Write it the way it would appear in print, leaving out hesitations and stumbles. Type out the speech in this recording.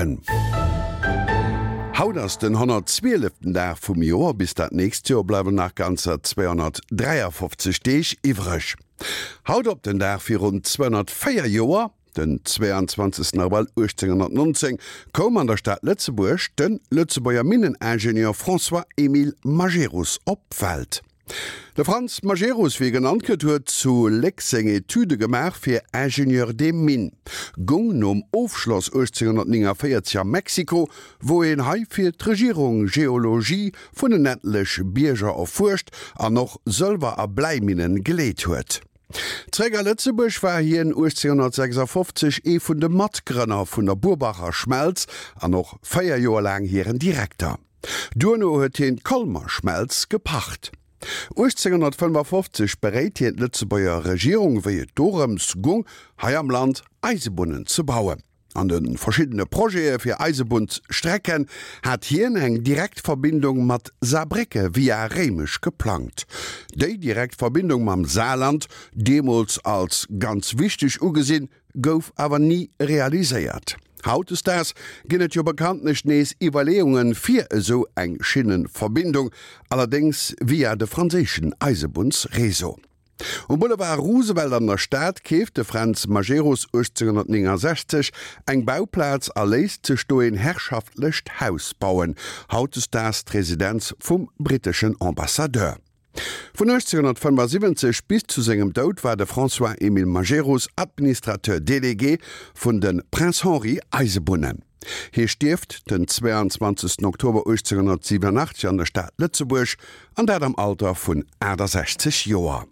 Mueren. Haut ass den 112. Dag vum Joer, bis dat nächst Joer bleiwen nach ganzer 253 Deeg iwwreg. Haut op den Dag virun 204 Joer, den 22 Abrëll 1819, koum an der Stad Lëtzebuerg de Lëtzebuerger Minneningenieur François-Émile Majerus op d'Welt. De Frantz Majerus, wéi e genannt gëtt, huet zu Léck seng Etüde gemaach fir Ingénieur des Mines, goung nom Ofschloss 1849 a Mexiko, wou een hei fir d'Regierung Geologie vun en ettlech Bierger erfuerscht an och Sëlwer a Bläiminnen geleet huet. Zréck a Lëtzebuerg war hien 1856 ee vun de Matgrënner vun der Burbacher Schmelz an och 4 Joer laang hiren Direkter. Duerno huet hien d'Colmer Schmelz gepacht. 1855 beréit hien d'Lëtzebuerger Regierung, wéi et dorëms gung, hei am Land Eisebunnen ze bauen. An de verschiddene Projete fir Eisebunnsstrecken hat hien eng direkt Verbindung mat Saarbrécke via Réimech geplangt. Déi direkt Verbindung mam Saarland, deemools als ganz wichteg ugesinn, gouf awer ni realiséiert. Hautdesdaags ginn et jo bekanntlech nees Iwwerleeunge fir esou eng Schinnenverbindung, allerdéngs via de franséischen Eisebunnsréseau. Um Boulevard Roosevelt an der Stad keeft de Fränz Majerus 1869 eng Bauplaz a léisst sech do een herrschaftlecht Haus bauen, hautdesdaags d'Residenz vum britteschen Ambassadeur. Vun 1875 bis zu sengem Doud war de François-Émile Majerus Administrateur délégué vun de Prince Henri Eisebunnen. Hie stierft den 22 Oktober 1887 an der Stad Lëtzebuerg, an dat am Alter vun 68 Joer.